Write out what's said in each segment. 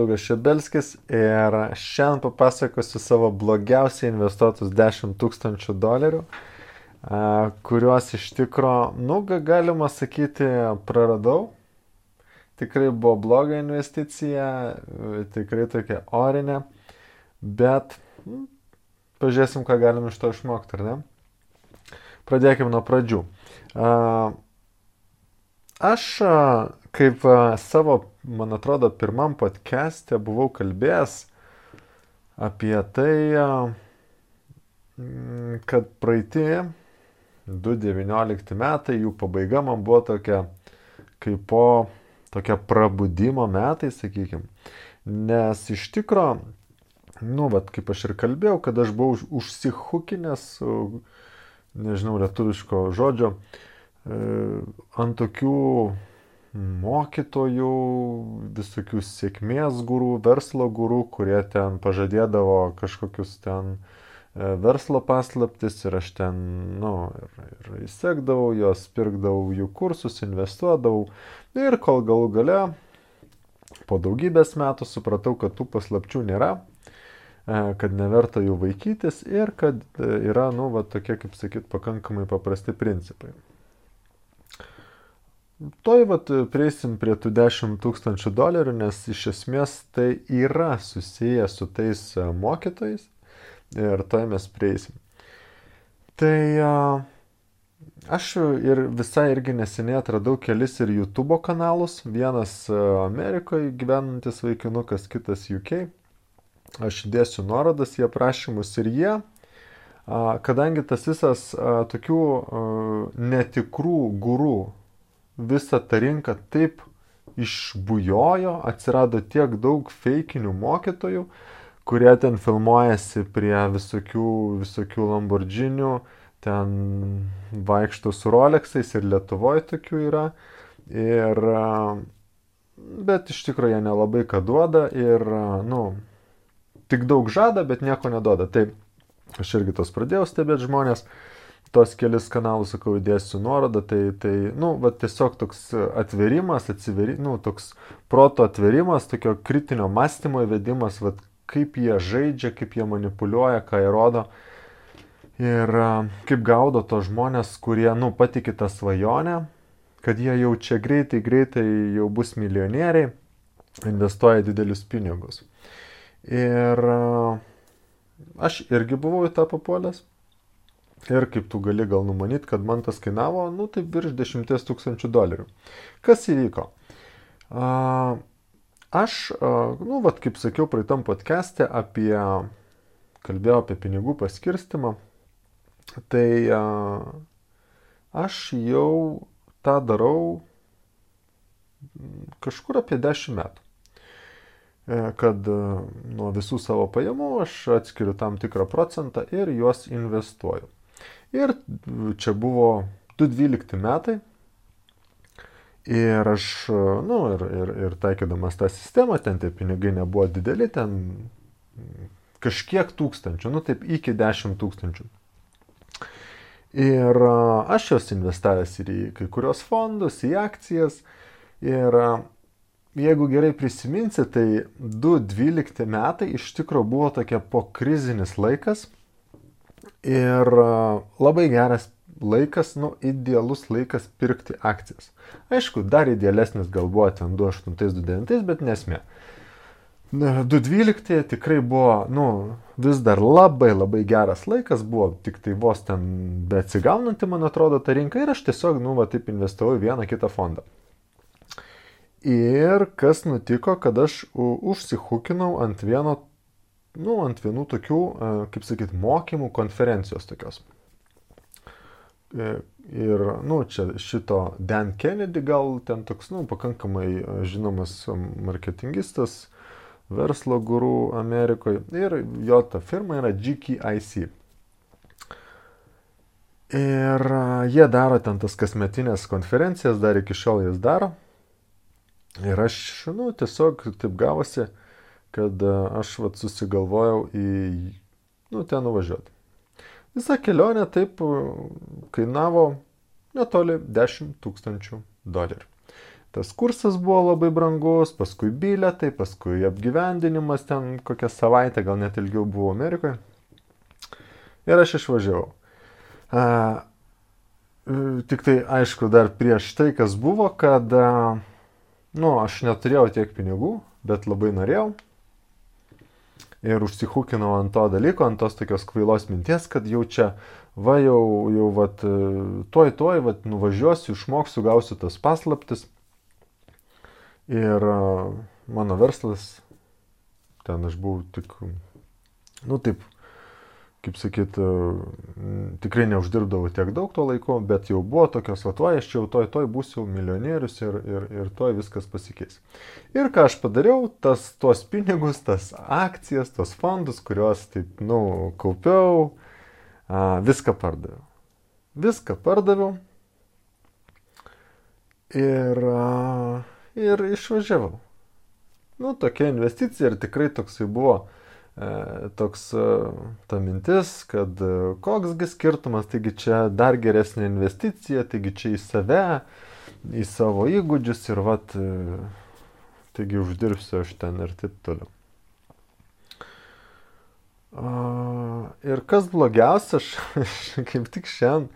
Mindaugas Šebelskis ir šiandien papasakosiu savo blogiausiai investuotus $10,000, kuriuos iš tikro, galima sakyti, praradau. Tikrai buvo bloga investicija, tikrai tokia orinė, bet pažiūrėsim, ką galim iš to išmokti, ar ne? Pradėkime nuo pradžių. Aš kaip savo, man atrodo, pirmam podcast'e buvau kalbėjęs apie tai, kad praeiti 2019 metai, jų pabaiga man buvo tokia prabudimo metai, sakykime. Nes iš tikro, kaip aš ir kalbėjau, kad aš buvau užsihukinęs, nežinau lietuviško žodžio, ant tokių mokytojų, visokių sėkmės gurų, verslo gurų, kurie ten pažadėdavo kažkokius ten verslo paslaptis ir aš ten, ir įsekdavau jos, pirkdavau jų kursus, investuodavau ir kol galų gale po daugybės metų supratau, kad tų paslapčių nėra, kad neverta jų vaikytis ir kad yra, tokie, kaip sakyt, pakankamai paprasti principai. Prieisim prie tų $10,000, nes iš esmės tai yra susiję su tais mokytojais ir mes prieisim. Tai aš ir visai irgi neseniai atradau kelis ir YouTube kanalus, vienas Amerikoje gyvenantis vaikinukas, kitas UK. Aš įdėsiu nuorodas į aprašymus ir jie, kadangi tas visas tokių netikrų gurų, visa ta rinka taip išbujojo, atsirado tiek daug feikinių mokytojų, kurie ten filmuojasi prie visokių Lamborghinių, ten vaikšto su Rolexais ir Lietuvoje tokių yra. Bet iš tikrųjų jie nelabai ką duoda ir, tik daug žada, bet nieko neduoda. Tai aš irgi tos pradėjau stebėti žmonės. Tos kelis kanalus, sakau, įdėsiu nuorodą, tiesiog toks atverimas, toks proto atverimas, tokio kritinio mąstymo įvedimas, kaip jie žaidžia, kaip jie manipuliuoja, ką jie rodo ir kaip gaudo tos žmonės, kurie, patikė tą svajonę, kad jie jau čia greitai jau bus milijonieriai, investuoja didelius pinigus. Ir aš irgi buvau į tą papuolęs. Ir kaip tu gali gal numanyti, kad man tas kainavo, tai virš $10,000. Kas įvyko? Aš, kaip sakiau, praeitam podcast'e kalbėjau apie pinigų paskirstimą, tai aš jau tą darau kažkur apie 10 metų. Kad nuo visų savo pajamų aš atskiriu tam tikrą procentą ir juos investuoju. Ir čia buvo 2012 metai ir aš, ir taikydamas tą sistemą, ten tie pinigai nebuvo dideli, ten kažkiek tūkstančių, taip iki 10,000. Ir aš juos investavęs ir į kai kurios fondus, į akcijas ir jeigu gerai prisiminsi, tai 2012 metai iš tikrųjų buvo tokia pokrizinis laikas ir labai geras laikas, idealus laikas pirkti akcijas. Aišku, dar idealesnis gal buvo ten 2008-2009, bet nesmė. 2012 tikrai buvo, vis dar labai geras laikas, buvo tik tai vos ten beatsigaunanti, man atrodo, ta rinka ir aš tiesiog, taip investavau į vieną kitą fondą. Ir kas nutiko, kad aš užsihukinau ant vienų tokių, kaip sakyt, mokymų konferencijos tokios. Ir, čia šito Dan Kennedy gal ten toks, pakankamai žinomas marketingistas, verslo gurų Amerikoje ir jo ta firma yra GKIC. Ir jie daro ten tas kasmetinės konferencijas, dar iki šiol jas daro. Ir aš, tiesiog taip gavosi, kad aš susigalvojau ten nuvažiuoti. Visa kelionė taip kainavo netoli $10,000. tas kursas buvo labai brangus, paskui bilietai, paskui apgyvendinimas ten kokią savaitę, gal net ilgiau buvau Amerikoje. Ir aš išvažiavau. Tik tai, aišku, dar prieš tai, kas buvo, kad, aš neturėjau tiek pinigų, bet labai norėjau. Ir užsihukinau ant to dalyko, ant tos tokios kvailos minties, kad jau čia, tuoj, nuvažiuosiu, išmoksiu, gausiu tas paslaptis. Ir mano verslas, ten aš buvau tik, taip, kaip sakyt, tikrai neuždirbdavau tiek daug tuo laiku, bet jau buvo tokios, aš čia jau tuoj būsiu milijonierius ir tuoj viskas pasikeis. Ir ką aš padariau, tuos pinigus, tas akcijas, tos fondus, kuriuos taip, kaupiau, viską pardaviau. Viską pardaviau ir išvažiavau. Tokia investicija ir tikrai toksai buvo ta mintis, kad koksgi skirtumas, taigi čia dar geresnė investicija, taigi čia į save, į savo įgūdžius ir taigi uždirbsiu aš ten ir taip toliau. Ir kas blogiausia, aš kaip tik šiandien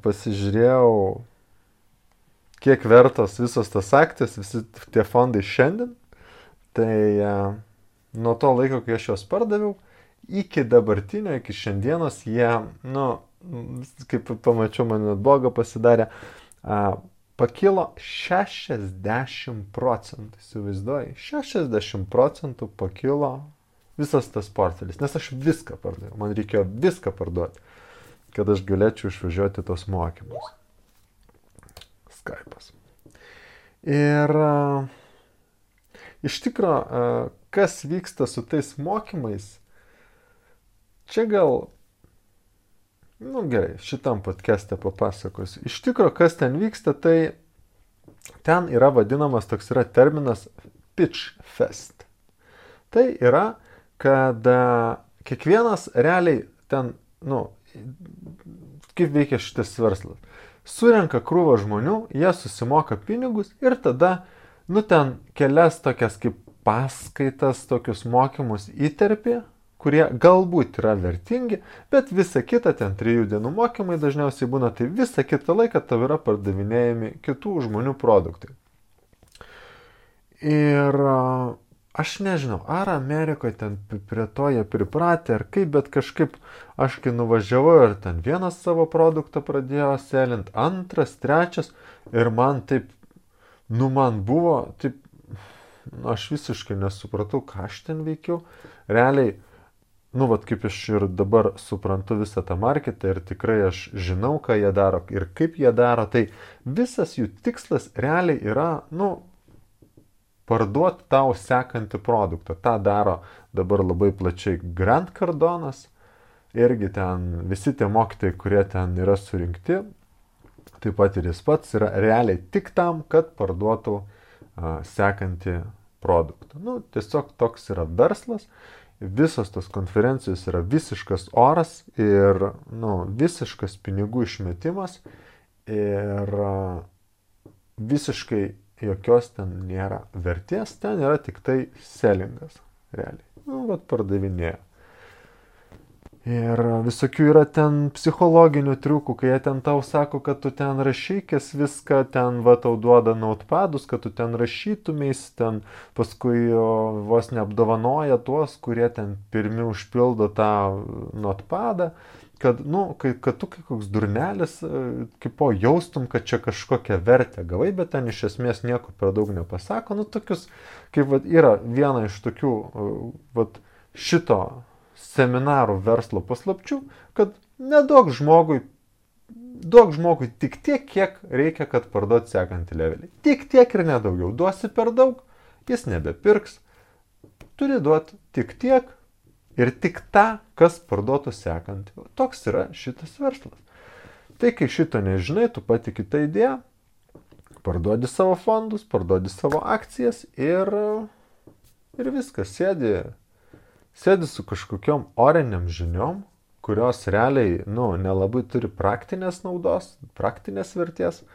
pasižiūrėjau, kiek vertos visos tas akcijas, visi tie fondai šiandien, tai nuo to laiko, kai aš juos pardaviau, iki dabartinio, iki šiandienos, jie, kaip pamačiau, man net blogo pasidarė, pakilo 60%, įsivaizduoji, 60% pakilo visas tas portfelis, nes aš viską pardaviau, man reikėjo viską parduoti, kad aš galėčiau išvažiuoti tos mokymus. Skype'as. Ir iš tikro, kas vyksta su tais mokymais, čia gal, gerai, šitam podcast'e papasakosiu. Iš tikro, kas ten vyksta, tai ten yra vadinamas, toks yra terminas pitch fest. Tai yra, kad kiekvienas realiai ten, kaip veikia šitas verslas. Surenka krūvą žmonių, jie susimoka pinigus ir tada, ten kelias tokias kaip paskaitas, tokius mokymus įterpė, kurie galbūt yra vertingi, bet visa kita, ten 3 dienų mokymai dažniausiai būna, tai visą kitą laiką tau yra pardavinėjami kitų žmonių produktai. Ir aš nežinau, ar Amerikoje ten prie to jie pripratę, ar kaip, bet kažkaip aš kai nuvažiavau ir ten vienas savo produktą pradėjo selint, antras, trečias, ir man taip, man buvo, taip, aš visiškai nesupratau, ką aš ten veikiau. Realiai, kaip aš ir dabar suprantu visą tą marketą ir tikrai aš žinau, ką jie daro ir kaip jie daro, tai visas jų tikslas realiai yra, parduoti tau sekantį produktą. Ta daro dabar labai plačiai Grant Cardonas, irgi ten visi tie mokytojai, kurie ten yra surinkti, taip pat ir jis pats yra realiai tik tam, kad parduotų sekantį produktą. Tiesiog toks yra verslas, visos tos konferencijos yra visiškas oras ir visiškas pinigų išmetimas ir visiškai jokios ten nėra vertės, ten yra tik tai sellingas, realiai. Pardavinėja. Ir visokių yra ten psichologinių triukų, kai jie ten tau sako, kad tu ten rašykės viską, ten tau duoda notepadus, kad tu ten rašytumės, ten paskui vos neapdovanoja tuos, kurie ten pirmi užpildo tą notepadą, kad, kad tu kaip koks durnelis, kaip jaustum, kad čia kažkokią vertę gavai, bet ten iš esmės nieko per daug nepasako. Tokius, kaip yra viena iš tokių, šito seminarų verslo paslapčių, kad neduok žmogui tik tiek, kiek reikia, kad parduoti sekantį levelį. Tik tiek ir nedaugiau. Duosi per daug, jis nebepirks. Turi duoti tik tiek ir tik tą, kas parduotų sekantį. Toks yra šitas verslas. Tai kai šito nežinai, tu patiki tą idėją, parduodi savo fondus, parduodi savo akcijas ir viskas, sėdi su kažkokiom oriniam žiniom, kurios realiai, nelabai turi praktinės naudos, praktinės vertės.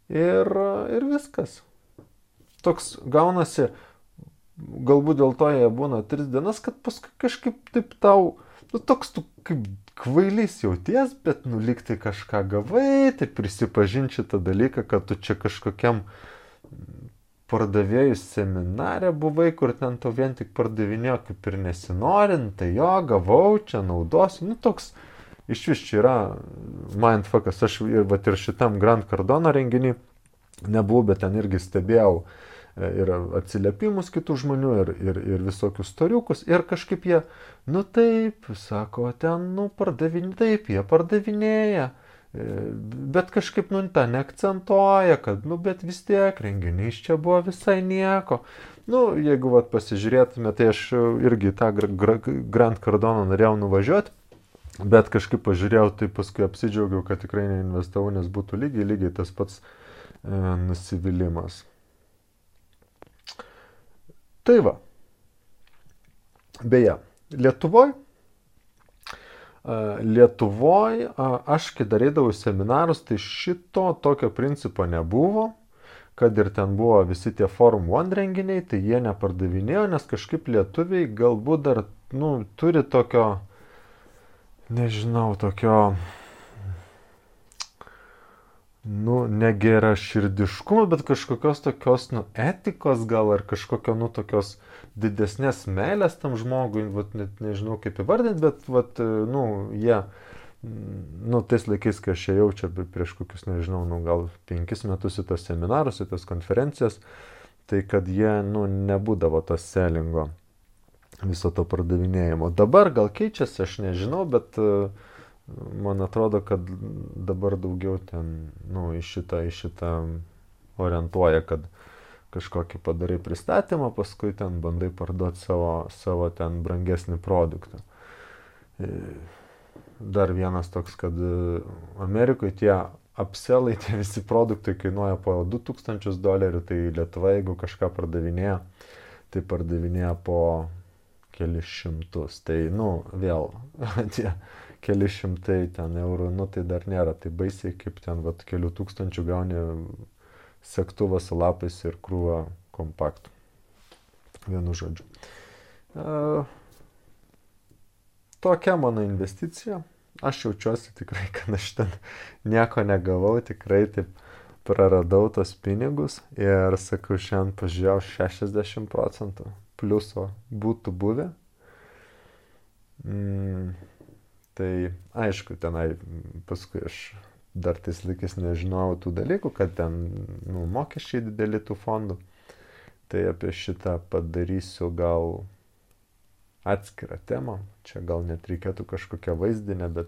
ir viskas. Toks gaunasi, galbūt dėl to jie būna 3 dienas, kad paskui kažkaip taip tau, toks tu kaip kvailys jauties, bet lyg tai kažką gavai, tai prisipažinti šitą dalyką, kad tu čia kažkokiam pardavėjų seminare buvai, kur ten tau vien tik pardavinėjo kaip ir nesinorint, tai jo, gavau, čia naudosiu, toks iš vis čia yra mindfuckas, aš ir šitam Grant Cardone renginį nebuvau, bet ten irgi stebėjau ir atsiliepimus kitų žmonių, ir visokius storiukus, ir kažkaip jie, taip, sako, ten, taip, jie pardavinėja, bet kažkaip, tą neakcentuoja, kad, bet vis tiek, renginys čia buvo visai nieko. Jeigu pasižiūrėtume, tai aš irgi tą Grant Cardone norėjau nuvažiuoti, bet kažkaip pažiūrėjau, tai paskui apsidžiaugiau, kad tikrai neinvestavau, nes būtų lygiai tas pats nusivylimas. Tai va. Beje, Lietuvoj aš, kai darydavau seminarus, tai šito tokio principo nebuvo, kad ir ten buvo visi tie Forum One renginiai, tai jie nepardavinėjo, nes kažkaip lietuviai galbūt dar, turi tokio, nežinau, tokio, negera širdiškumo, bet kažkokios tokios, etikos gal, ar kažkokio, tokios didesnės meilės tam žmogui, net nežinau kaip įvardinti, bet, jie, tais laikais, kai aš ėjau čia prieš kokius, nežinau, gal 5 metus į tos seminarus, į tos konferencijas, tai kad jie, nebūdavo to sellingo, viso to pardavinėjimo. Dabar gal keičiasi, aš nežinau, bet man atrodo, kad dabar daugiau ten, į šitą orientuoja, kad kažkokį padarai pristatymą, paskui ten bandai parduoti savo ten brangesnį produktą. Dar vienas toks, kad Amerikoje tie upsellai, tie visi produktai kainuoja po $2000, tai Lietuva, jeigu kažką pardavinėja, tai pardavinėja po kelis šimtus. Tai, vėl, tie keli šimtai ten eurų, tai dar nėra, tai baisiai kaip ten, kelių tūkstančių gauni segtuvą su lapais ir krūvą kompaktų. Vienu žodžiu. Tokia mano investicija. Aš jaučiuosi tikrai, kad aš ten nieko negavau, tikrai taip praradau tos pinigus ir, sakau, šiandien pažiūrėjau 60% pliuso būtų buvę. Tai aišku, tenai paskui aš dar tais laikais nežinojau tų dalykų, kad ten mokesčiai dideli tų fondų. Tai apie šitą padarysiu gal atskirą temą. Čia gal net reikėtų kažkokią vaizdinę, bet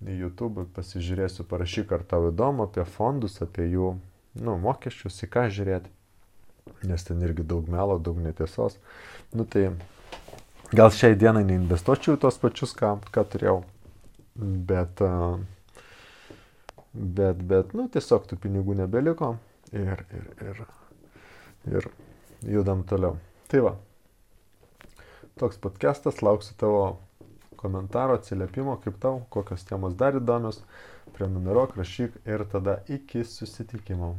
į YouTube pasižiūrėsiu, parašyk, ar tau įdomu apie fondus, apie jų mokesčius, į ką žiūrėti. Nes ten irgi daug melo, daug netiesos. Tai gal šiai dienai neinvestuočiau į tos pačius, ką turėjau, bet tiesiog tų pinigų nebeliko ir judam toliau. Tai va, toks podcastas, lauksiu tavo komentaro, atsiliepimo, kaip tau, kokios temos dar įdomios, prenumeruok, rašyk ir tada iki susitikimo.